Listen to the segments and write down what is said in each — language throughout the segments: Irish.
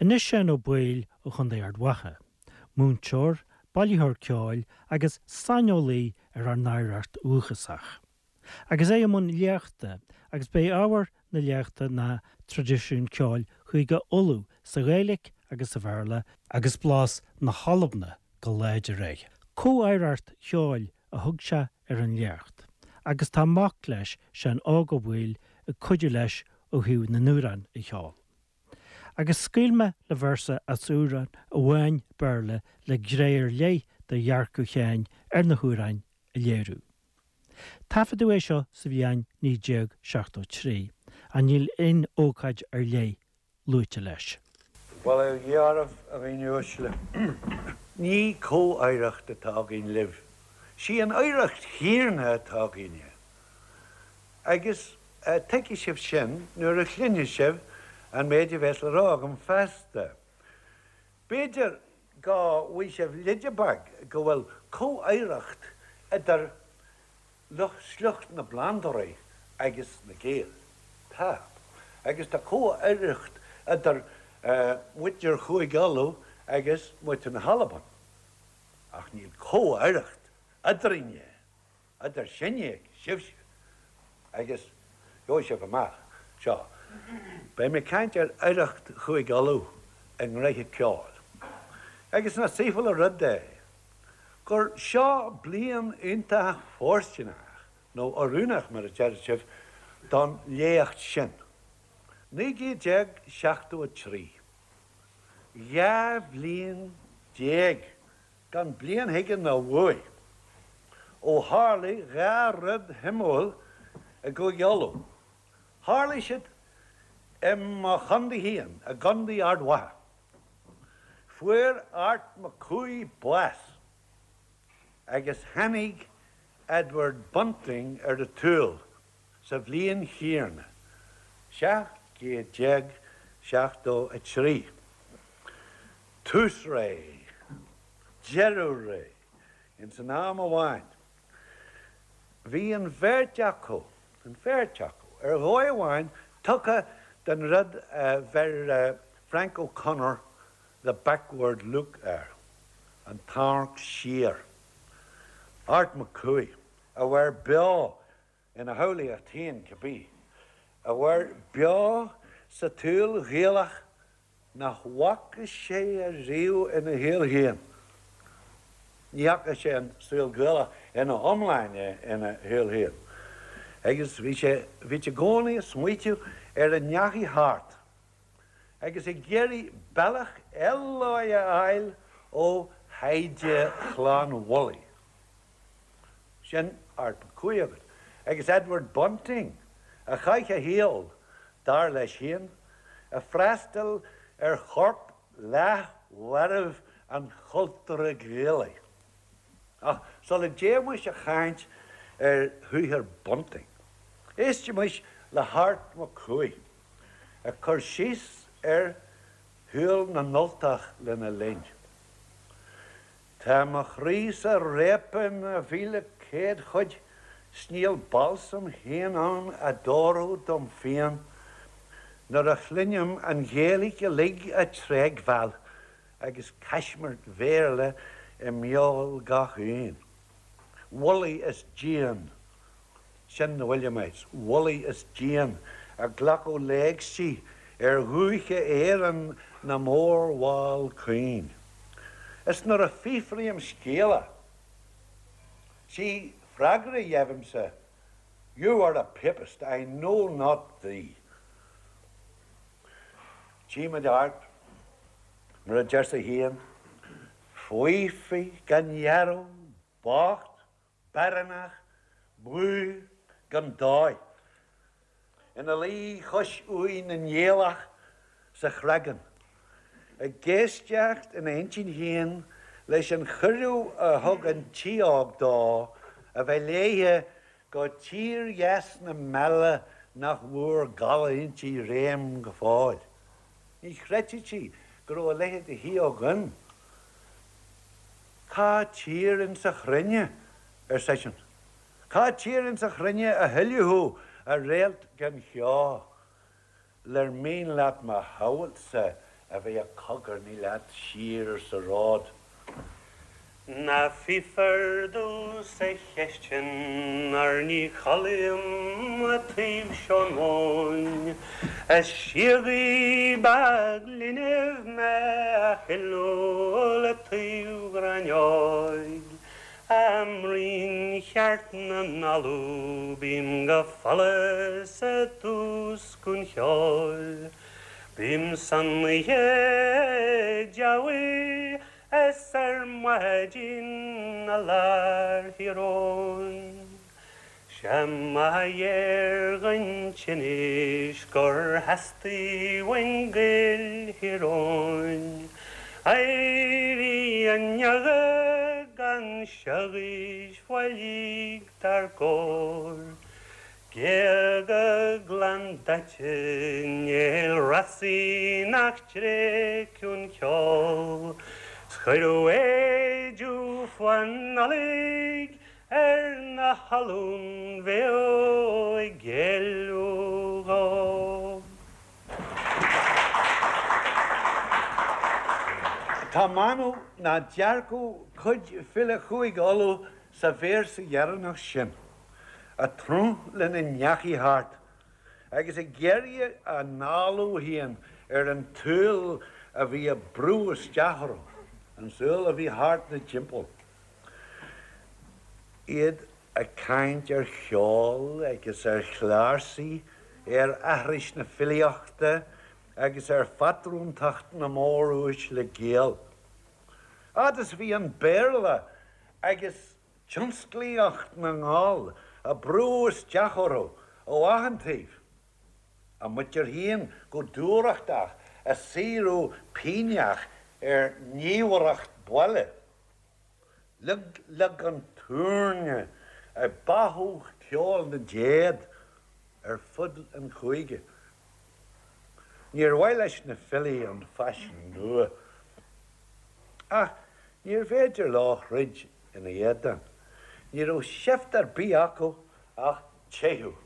Anois Seán Ó Baoill ó Chontae Ard Mhacha, múinteoir, bailitheoir ceoil agus saineolaí ar ár n-oidhreacht dhúchasach. Agus é i mbun léachta, agus b'é ábhar na léachta ná traidisiún ceoil Chúige Uladh sa Ghaeilge agus sa Bhéarla, agus blas na hAlban go láidir air. Comhoidhreacht cheoil a thug sé ar an léacht, agus tá mac leis, Seán Óg Ó Baoill, ag cuidiú leis ó thaobh na n-amhrán a cheol. Agus scaoil mé le véarsa as amhrán amháin Béarla le gné ar leith de dhearcadh Sheáin ar na hamhráin a léiriú. Taifeadadh é seo sa bhliain 1973, ach níl aon ócáid ar leith luaite leis. Bail ó Dhia oraibh, a dhaoine uaisle. Ní comhoidhreacht atá againn libh. Sí an oidhreacht chéanna atá againne. Agus tuigfidh sibh sin nuair a chluinfidh sibh an méid a bheas le rá agam feasta. B'fhéidir go bhfaighidh sibh leide beag go bhfuil comhoidhreacht idir lucht sliocht na bplandóirí agus na Gaeil. Tá. Agus tá comhoidhreacht idir muintir Chúige Uladh agus muintir na hAlban. Ach níl comhoidhreacht eadrainne. Idir sinne agus sibhse, agus gheobhaidh sibh amach seo, beidh mé ag caint ar oidhreacht Chúige Uladh i ngnoithe ceoil. Agus nach saoithiúil an rud é gur seo bliain iontach fóirsteanach, nó oiriúnach mar a deir sibh, don léacht sin. 1973. 12 bhliain gan bliain chuige ná uaidh, ó tharlaigh dha rud shuimiúil i gCúige Uladh. Tharlaigh siad i mo chontae féin, i gContae Ard Mhacha. Fuair Art Mac Cumhaigh bás agus tháinig Edward Bunting ar an tsaol sa bhliain chéanna, 1773. Tús ré, deireadh ré, ins an am amháin. Bhí an bheirt acu, an bheirt acu, ar dhóigh amháin tugtha don rud a bheir Frank O'Connor the backward look air, an t-amharc siar. Art Mac Cumhaigh, a mhair beo ina shamhlaíocht féin cibé, a mhair beo sa tsaol Ghaelach nach bhfaca sé ariamh ina shaol féin. Ní fhaca sé an saol Gaelach ina iomláine ina shaol féin. Agus bhí sé, bhí i gcónaí ag smaoitiú ar a ndeachaigh thart agus ag iarraidh bealach eile a fháil ó thaighde Chlann Mhullaigh. Sin Art Mac Cumhaigh agat. Agus Edward Bunting, a chaith a shaol, dar leis féin, ag freastal ar chorp leathmharbh an chultúra Ghaelaigh. Ach sula dtéimis a chaint ar shaothar Bunting, éistimis le hArt Mac Cumhaigh ag cur síos ar shaol na nUltach lena linn. Tá mo chroí-sa réabtha ina 1,100 chuid 's níl balsam féin ann a d'fhóirfeadh dom phian nuair a chluinim an Ghaeilge uilig á tréigbheáil agus caismirt Bhéarla i mbeul gach aon. Wullie is dian. Sin na Williamites, Wullie is dian ag glacadh léigsi ar dhúiche Éireann na mórbhall caoin. Is nuair a fiafraím scéala, sí freagra a gheibhimse, You are a papist, I know not thee. Tchímid Art, mar a deir sé féin, faofa, gan dhealramh, bocht, Baireannach, buí, gan dóigh. Ina luí cois uaigh na nGaelach sa Chreagán, ag éisteacht ina intinn féin leis an chuireadh a thug an tsidheog dó a bheith léithe go tír dheas na meala nach bhfuair gala inti réim go fóill. Ní chreidfeadh sí go raibh a leithéid de shidheog ann. Cá tír insa chruinne, ar seisean, cá tír insa chruinne a hoileadh thú, a réalt gan cheo, lar mian leat mo shamhailtse a bheith ag cogarnaigh leat siar sa ród. Ná fiafraigh domhsa cheist sin óir ní chodlaím a' taobh seo móin. Is síogaí beag linbh mé a shiúil a' taobh ghráinneoig. I mbroinn cheart na n-ollamh bím go follas i dtús an cheoil. Bím san oíche deabhaidh is ar maidin i lár Thír Eoghain. 'Sé mo dhear den tinnis gur theastaigh uainn Gaeil Thír Eoghain éirí inniu gan siogais bhailígh dár gcóir. Géaga glan daite néal fhrasaí nach dtréigeann ceol 's cuireadh éidiú fá Nollaig ar na hOllúin bheo ag géilleadh dhó. Tá m'anam nach dearcadh cuid file Chúige Uladh sa véarsa dheireanach sin. ag tnúth lena ndeachaigh thart, agus ag iarraidh a n-análú féin ar an tsaol a bhí ag brú isteach orthu, an saol a bhí thart 'na dtimpeall. Iad ag caint ar cheol agus ar chláirsigh, ar aithris na filíochta agus ar phatrúntacht na móruaisle Gael. Fhad is a bhí an Béarla agus tionsclaíocht na nGall ag brú isteach orthu ó achan taobh, a muintir féin go dúthrachtach ag saothrú pighneach ar ghníomhaireacht baile. Leag leag an túirne ag báthadh ceol na dtéad ar fud an chúige. Níor mhaith leis na filí an faisean nua. Ach níorbh fhéidir leo throid ina éadan. Ní raibh seift ar bith acu ach teitheadh.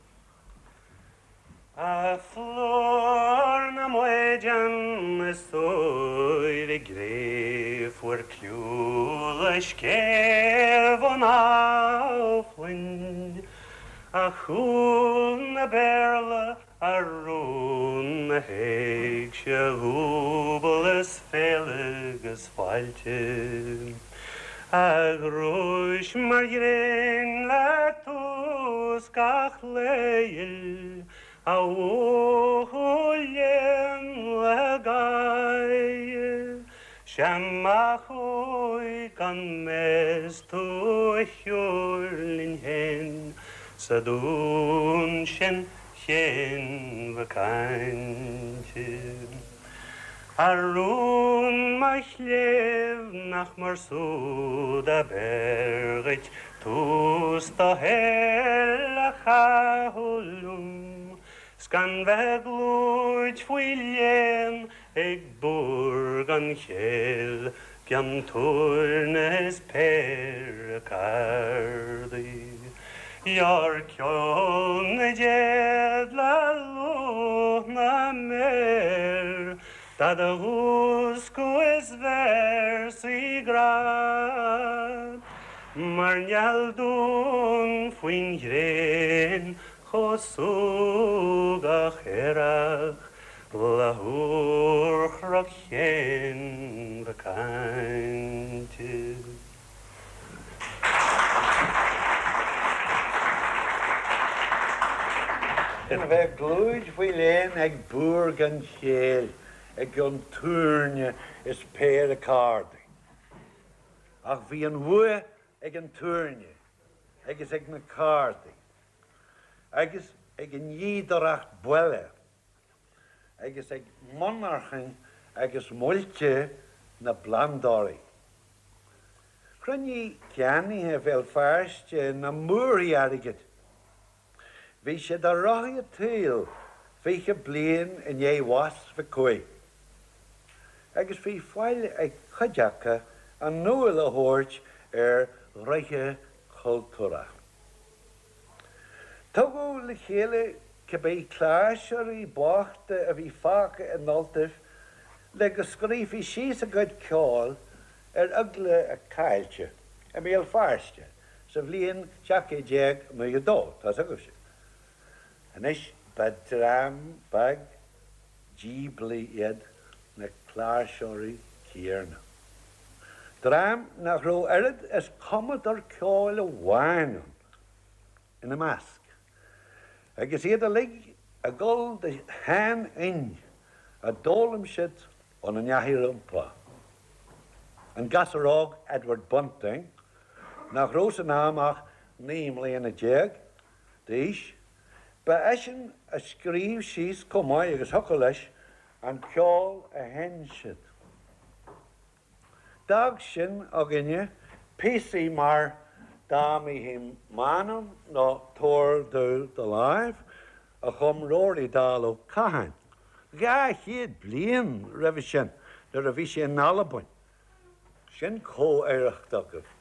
A phlúr na maighdean is úire gcré fuair cliú le scéimh an amhlainn, a chúl na Béarla A rún na héigse dhúbal is féile 'gus fáilte, A ghnúis mar ghréin le tús gach lae ghil, A bhuachaill léan le gáire, 'Sé má chuaigh gan mheas tú a shiúl linn féin sa dún sin chéin cainte. A rún mo chléibh nach mar súd ab fhearr dhuit tús do shaoil a chaitheamh liom 's gan bheith glúid faoi léan ag búr gan chéill gcionn túirne is péire cárdaí. Ghearr ceol na dtéad le lúth na méar do do mhúscadh is véarsaí grá mar néal donn faoin ghréin chomh súgach aerach Le húrchnoc Chéin Mhic Cainte. A bheith glúid faoi léan ag búr gan chéill i gcionn túirne is péire cárdaí. Ach bhí an bhua ag an túirne agus ag na cárdaí agus ag an ndíodóireacht buile. agus ag monarchain agus muilte na bplandóirí. Chruinnigh ceannaithe Bhéal Feirste na múrthaí airgid. Bhí siad ar rothaí an tsaoil 20 bliain i ndiaidh bhás Mhic Cumhaigh, agus bhí faill ag cuid acu a ndúil a thabhairt ar ghnoithe cultúrtha. Tugadh le chéile cibé cláirseoirí bochta a bhí fágtha in Ultaibh le go scríofaí síos a gcuid ceoil ar eagla a caillte i mBéal Feirste sa bhliain 1792, tá's agaibhse. Anois, ba dream beag díoblaí iad na cláirseoirí céanna. Dream nach raibh oiread is cumadóir ceoil amháin ann ina measc, agus iad uilig ag gol do sheanfhoinn a d'fhoghlaim siad óna ndeachaigh rompu. An gasúr óg Edward Bunting, nach raibh san am ach 19 mbliana d'aois, ba eisean a scríobh síos chomh maith agus thiocfadh leis an ceol a sheinn siad. D'fhág sin againne píosaí mar Dá Mbífinn M'Anam nó Tabhair Domh Do Láimh a chum Rory Dall Ó Catháin 200 bliain roimhe sin nuair a bhí sé in Albain. Sin comh-oidhreacht agaibh.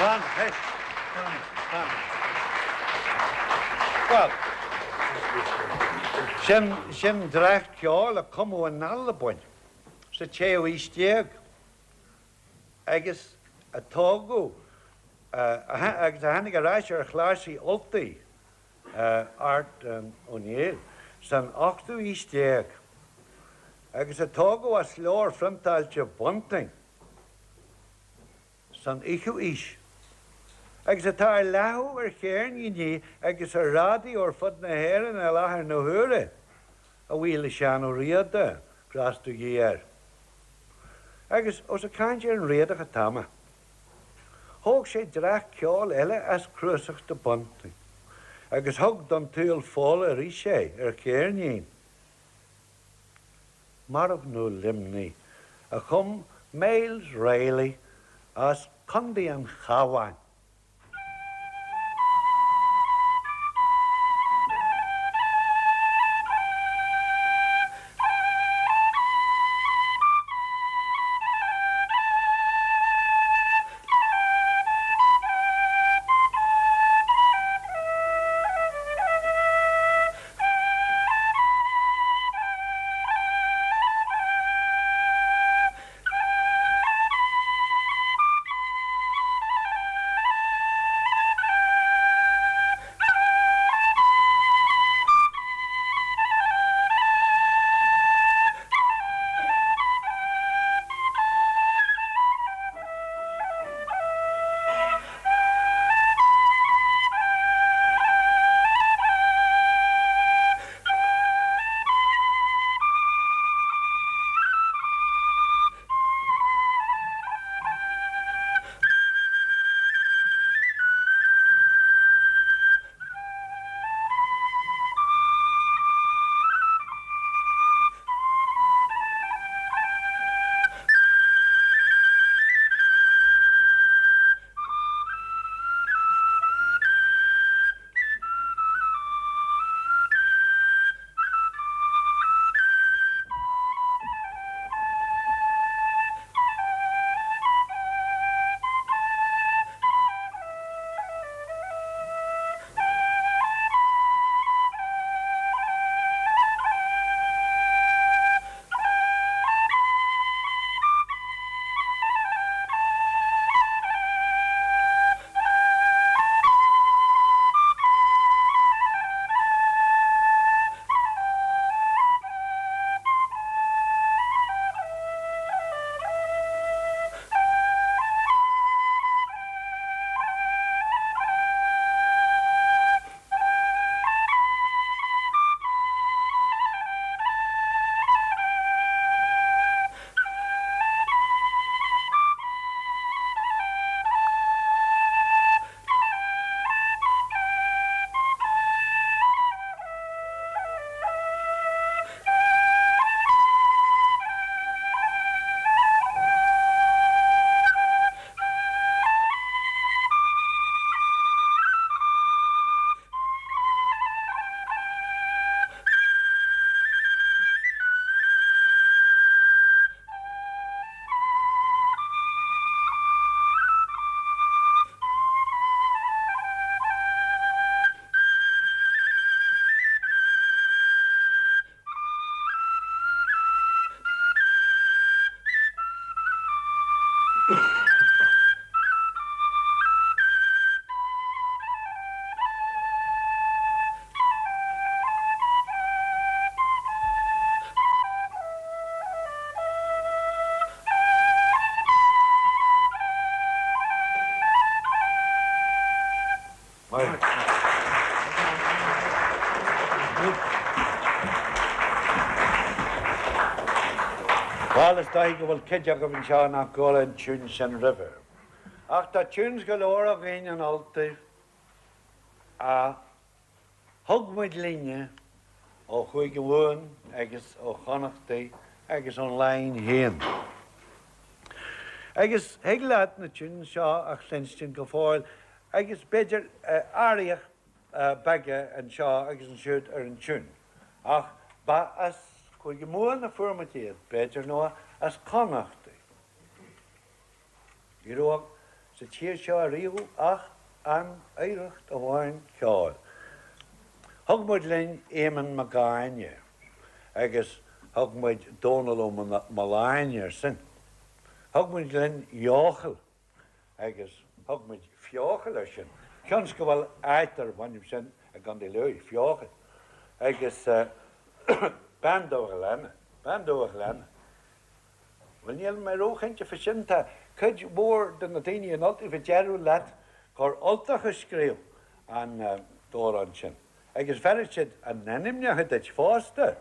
Fan, hey, fan, fan. Bhuel, sin, sin dréacht ceoil a cumadh in Albain sa tséú haois déag agus a tógadh, agus a tháinig ar ais ar chláirsí Ultaigh Art Ó Néill san ochtú haois déag agus a tógadh as leabhar phriontáilte Bunting. san fhichiú haois, agus atá ar leathadh ar cheirníní agus ar raidió ar fud na hÉireann i láthair na huaire, a bhuí le Seán Ó Riada, grásta Dé air. Agus ós ag caint ar an Riadach atá mé, thóg sé dréacht ceoil eile as cnuasach de Bunting agus thug don tsaol Fódhla arís é ar cheirnín. Marbhna Luimnigh, a chum Myles Reilly as Contae an Chabháin. Maith. Bhuel, is dóigh go bhfuil cuid agaibh anseo nach gcuala an tiún sin roimhe. Ach tá tunes go leor againn in Ultaibh a thug muid linne ó Chúige Mumhan agus ó Chonnachtaí agus ón Laighin féin. Agus thig leat na tunes seo a chluinstin go fóill agus b'fhéidir athruithe beaga anseo agus ansiúd ar an tiún, ach ba as Cúige Mumhan a fuair muid iad, b'fhéidir, nó as Connachtaí. Ní raibh sa tír seo ariamh ach an oidhreacht amháin ceoil. Thug muid linn Éamonn Mac Áine agus thug muid Dónal Ó Mealláin air sin. Thug muid linn Eochaill agus thug muid Feochaill air sin. Cionn is go bhfuil áit darb ainm sin i gContae Lú, Feochaill. Agus Bean Dumha Ghleanna, Bean Dumha Ghleanna. Bhuel, níl mé róchinnte fá sin. Tá cuid mhór de na daoine in Ultaibh a déarfadh leat gur Ultach a scríobh an t-amhrán sin. Agus bhéarfadh siad a n-ainmneacha duit fosta.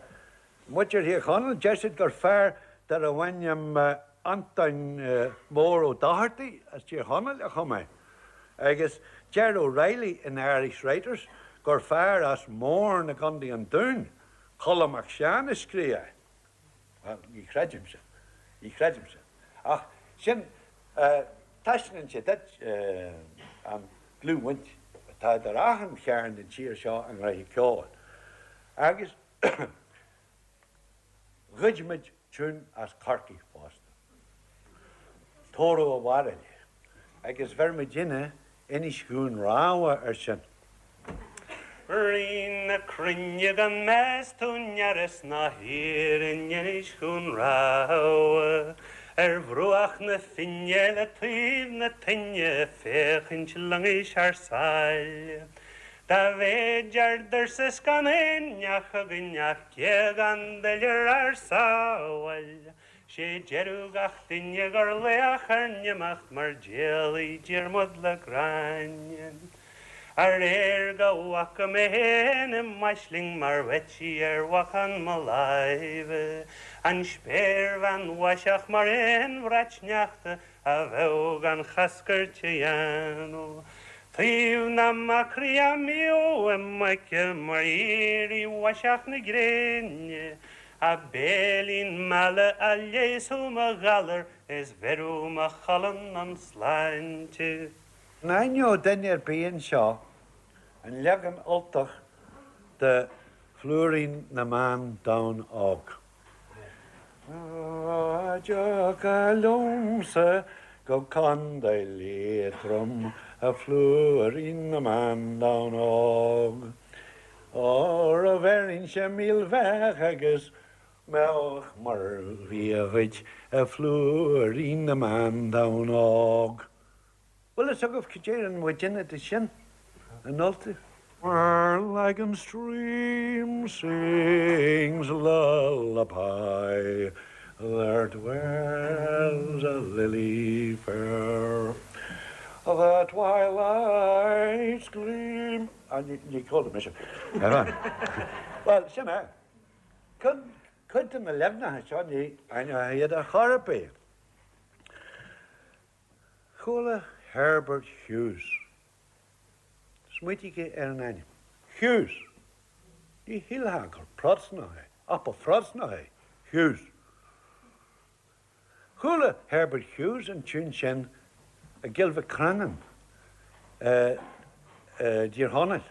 Muintir Thír Chonaill, deir siad gur fear darbh ainm Antoin Mór Ó Dochartaigh as Tír Chonaill a chum é. Agus deir O'Reilly in Irish Writers gur fear as Mourne i gContae an Dúin, Colm Mac Seáin a scríobh é. Bhuel, ní chreidim sin. Ní chreidim sin. Ach sin, taispeánann sé duit an dlúthbhaint atá idir achan chearn den tír seo i ngnoithe ceoil. Agus ghoid muid tiún as Corcaigh fosta. Tórramh a' Bharraigh. Agus bheir muidinne Inis Dhún Rámha air sin. Rí na cruinne gan meas tú neras ná thír in Inis Dhún Rámha ar bhruach na Finne le taobh na toinne féachaint loingis thar sáile. Dá mhéid ár dtuirse 's gan aon neach againn ach géagán d'oilear ár sábháil. 'Sé deireadh gach duine gur laoch ár n-imeacht mar d'éalaigh Diarmuid le Gráinne. Aréir go bhfaca mé fhéin i m'aisling mar bheití ar bhacán mo láimhe, an spéirbhean mhaiseach mar aon bhrat sneachta a bheadh gan chascairt a dhéanamh. Taobh na macraí a mbíodh i m'aice mar éirí mhaiseach na gréine, A béilín meala a leigheasfadh mo ghalar is bheireadh mo cholainn an sláinte. An aithneodh duine ar bith anseo an leagan Ultach de Phlúirín na mBan Donn Óg? Dá dtiocfá liomsa go Contae Liatroim, a phlúirín na mban donn óg. Óra bheirinnse milbheach agus mbeadh mar bhia dhuit, a phlúirín na mban donn óg. Bhfuil fhios agaibh cad deireann muidinne de sin in Ultaibh? Where Lagan stream sings lullaby, there dwells a lily fair, The twilight's gleam. Ah, ní chuala mise. Bhuel, sin é. Cuid de na leaganacha seo ní aithneofá iad ar chor ar bith. Chuala Herbert Hughes. Smaointígí ar an ainm. Hughes. Ní shílfeá gur Protastúnach é, ach ba Phrotastúnach é Hughes. Chuala Herbert Hughes an tiún sin i gCill Mhic Crionáin i dTír Chonaill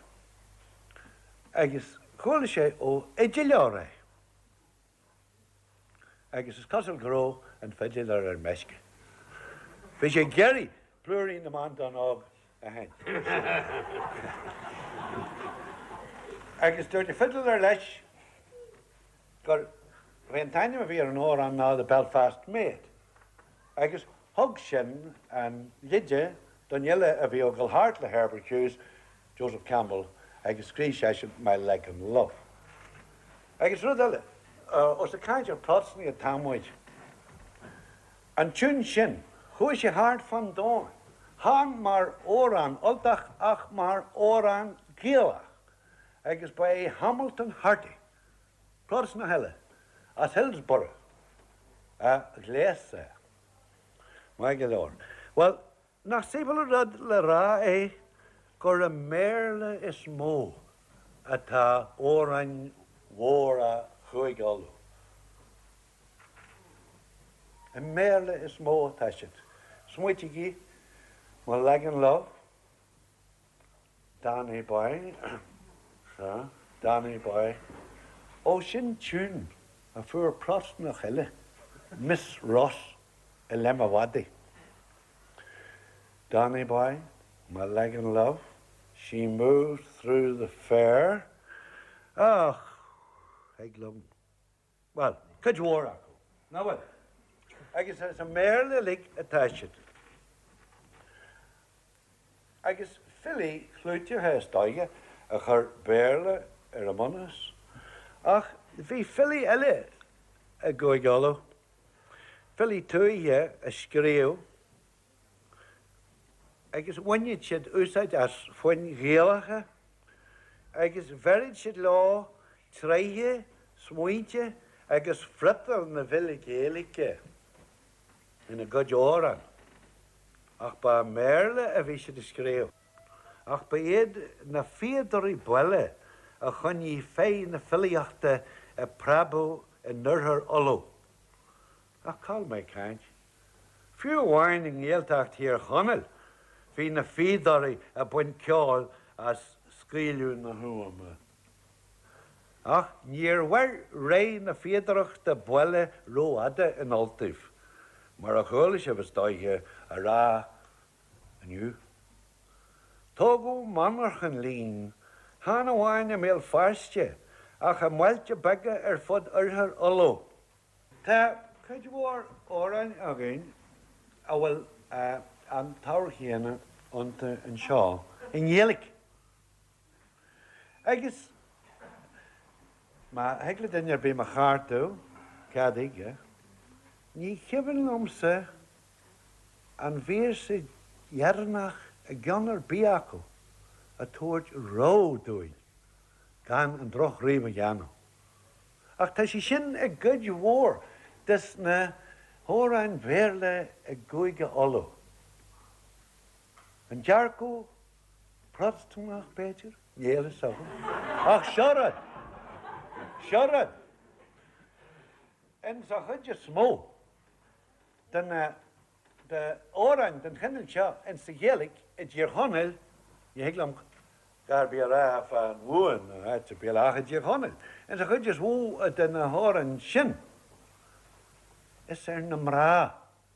agus chuala sé ó fhidiléir é agus is cosúil go raibh an fidiléir ar meisce. Bhí sé ag iarraidh Plúirín na mBan Donn Óg a sheinnt. Agus dúirt an fidiléir leis gur bhí an t-ainm a bhí ar an amhrán ná The Belfast Maid agus thug sin an leide don fhile a bhí ag dul thart le Herbert Hughes, Joseph Campbell, agus scríobh seisean My Lagan Love. Agus rud eile, ós ag caint ar Phrotastúnaigh atá muid, an tiún sin, chuaigh sé thart fán domhan. Chan mar amhrán Ultach ach mar amhrán Gaelach agus ba é Hamilton Harty, Protastúnach eile as Hillsborough, a ghléas é. Maith go leor. Bhuel, nach saobhal an rud le rá é gur i mBéarla is mó atá amhráin mhóra Chúige Uladh. I mBéarla is mó atá siad. Smaoitígí, Mo Lagan Love, Danny Boy, sea, Danny Boy. Ó, sin tiún a fuair Protastúnach eile, Miss Ross, i leith mo mhadaidh. Danny Boy, My Lagan Love, She Moved Through the Fair, ach thig liom. Bhuel, cuid mhór acu, nach bhfuil? Agus is i mBéarla uilig atá siad. Agus filí clúiteacha is dóiche a chuir Béarla ar a mbunús. Ach bhí filí eile i gCúige Uladh, filí tuaithe a scríobh agus bhaineadh siad úsáid as foinn Ghaelacha agus bheireadh siad leo tréithe, smaointe agus friotal na bhfilí Gaeilge ina gcuid amhrán. Ach ba i mBéarla a bhí siad ag scríobh. Ach ba iad na fíodóirí baile a choinnigh féith na filíochta ag preabadh in oirthear Uladh. Ach cá bhfuil mé ag caint? Fiú amháin i nGaeltacht Thír Chonaill bhí na fíodóirí ag baint ceoil as scaoileadh na huama. Ach níor mhair ré na fíodóireachta baile rófhada in Ultaibh, mar a chuala sibh, is dóiche, á rá inniu. Tógadh monarchan lín, chan amháin i mBéal Feirste, ach i mbailte beaga ar fud oirthear Uladh. Tá cuid mhór amhráin againn a bhfuil an t-ábhar chéanna iontu anseo i nGaeilge. Agus má thig le duine ar bith mo cheartú, cad chuige, ní cuimhin liomsa an véarsa dheireanach i gceann ar bith acu ag tabhairt rabhadh dúinn gan an drochrím a dhéanamh. Ach tá sé sin i gcuid mhór des na hamhráin Bhéarla i gCúige Uladh. An dearcadh Protastúnach, b'fhéidir? Níl fhios agam. Ach seo rud! Seo rud! Insa chuid is mó de na d'amhráin den chineál seo insa Ghaeilge i dTír Chonaill, ní thig liom a dhath ar bith a rá fán Mhumhain nó áit ar bith eile ach i dTír Chonaill, insa chuid is mó de na hamhráin sin, is ar na mná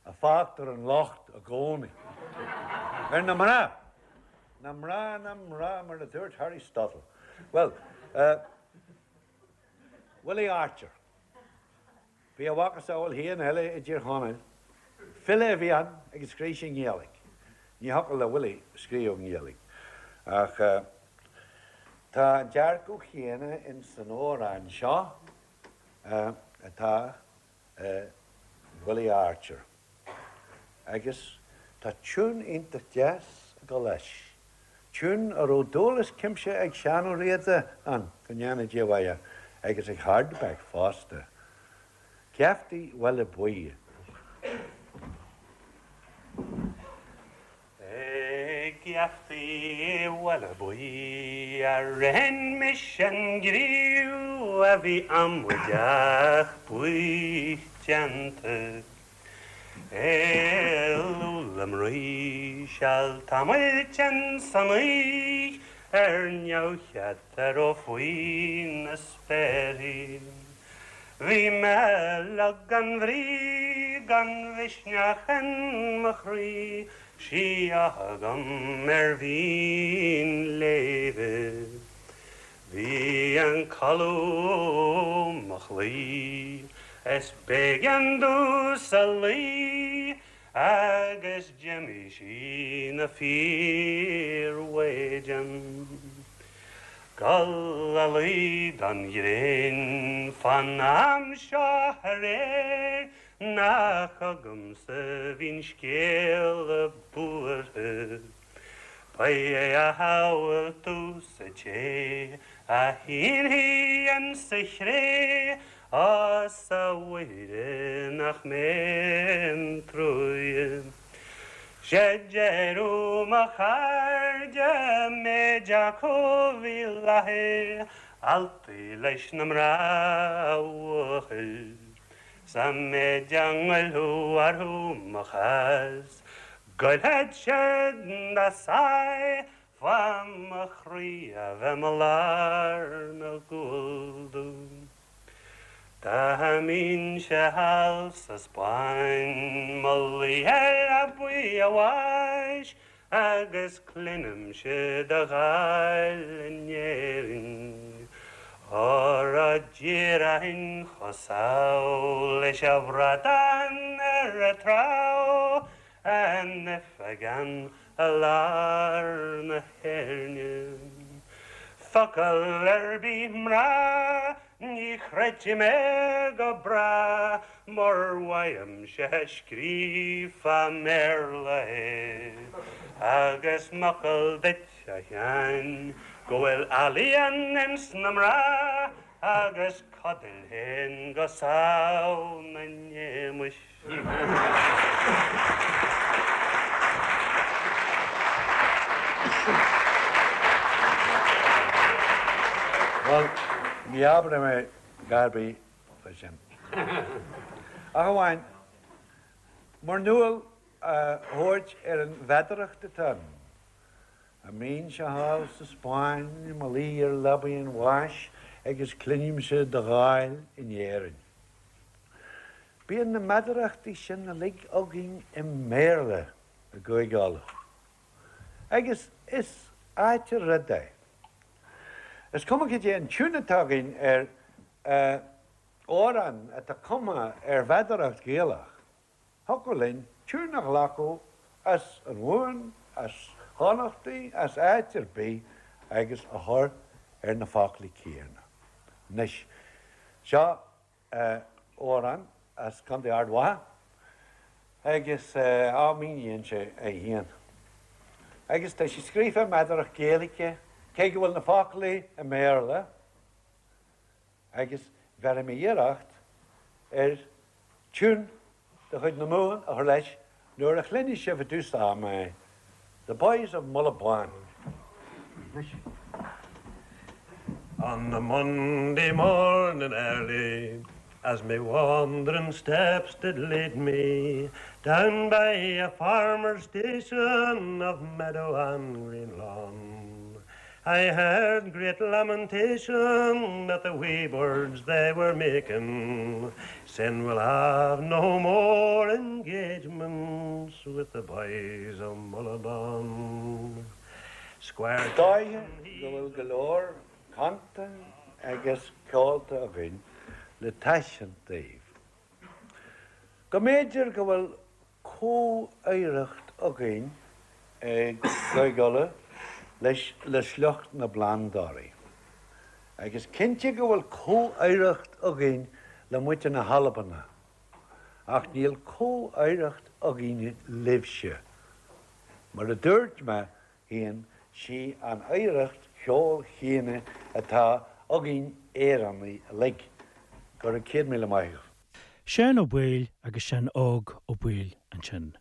a fágtar an locht i gcónaí. Ar na mná! Na mná, na mná, mar a dúirt Harry Stottle. Bhuel, Willie Archer. Bhí a mhacasamhail féin eile i dTír Chonaill. File a bhí ann agus scríobh sé i nGaeilge. Ní thiocfadh le Willie scríobh i nGaeilge. Ach tá an dearcadh chéanna ins an amhrán seo atá i Willie Archer. Agus tá tiún iontach deas ag dul leis. Tiún a raibh dúil as cuimse ag Seán Ó Riada ann, go ndéana Dia a mhaith air, agus ag Hardback fosta. Geaftaí Bhaile Buí. Ag geaftaí Bhaile Buí a ritheann mise an griú a bhí amaideach buí déanta. Éalú le mnaoi seal tamaill san oíche ar neamhchead a raibh faoi na spéarthaí. Bhí mé lag gan bhrí, gan mhisneach in mo chroí, 'S í agam ar mhín léimhe. Bhí an codladh mo chloí, is b'éigean domhsa luí agus d'imigh sí 'na fíormhaighdean. Gul a luí don ghréin fán am seo aréir. Nach agamsa a bhíonn scéala buartha. Ba é a shamhaltú-sa té a shínfidh insa chré, Á 's a Mhuire nach mé an truaighe. 'Sé deireadh mo chairde méid acu bhí i láthair, Altaí leis na mná a bhuachaill. 'S an méid a ngoillfeadh orthu mo chás, Goillfeadh siad dá sáith fá mo chroí a bheith mo lár na gcúl domh. Dá mbínnse thall sa Spáinn, mo luí ar leabaidh a bháis, Agus cluinimse do dháil in Éirinn, Óra déarfainn chomh sámh leis a' bhradán ar a' trá, An oifigeán i lár na hÉirne. Focal ar bith mná Ní chreidfidh mé go bráth mur bhfaighimse scríofa i mBéarla é. Agus m'fhocal duit, a Sheáin, go bhfuil ealaíon ins na mná agus codail féin go sámh 'na n-éamuis. Bhuel, ní abróidh mé a dhath ar bith faoi sin. Ach amháin, muirniúil a thabhairt ar an mheadaracht atá ann. Dá mbínnse thall sa Spáinn i mo luí ar leabaidh an bháis agus cluinimse do dháil in Éirinn. Bíonn na meadarachtaí sin uilig againn i mBéarla i gCúige Uladh. Agus is ait an rud é. Is cuma cad é an tiún atá againn ar amhrán atá cumtha ar mheadaracht Ghaelach, Thiocfadh linn tiún a ghlacadh as an Mhumhain, as Chonnachtaí, as áit ar bith agus a chur ar na foclaí céanna. Anois, seo amhrán as Contae Ard Mhacha agus á míníonn sé é féin. Agus tá sé scríofa i meadaracht Gaeilge, cé go bhfuil na foclaí i mBéarla, agus bhéarfaidh mé iarracht ar tiún de chuid na Mumhan a chur leis nuair a chluinfidh sibh i dtús ama é, The Boys of Mullaghbawn. Anois. On the Monday morning early, as me wandering steps did lead me, Down by a farmer's station of meadow and green lawn, I heard great lamentation that the wee birds they were making, Saying we'll have no more engagements with the boys of Mullaghbawn. Squire Dóiche go bhfuil go leor canta agus ceolta againn le taispeáint daoibh. Go mb'fhéidir go bhfuil comhoidhreacht againn i gCúige Uladh leis le sliocht na bplandóirí. Agus cinnte go bhfuil comhoidhreacht againn le muintir na hAlban, ach níl comhoidhreacht againne libhse. Mar a dúirt mé féin, sí an oidhreacht cheoil chéanna atá againn Éireannaigh uilig. Go raibh 100,000 maith agaibh. Seán Ó Baoill agus Seán Óg Ó Baoill ansin.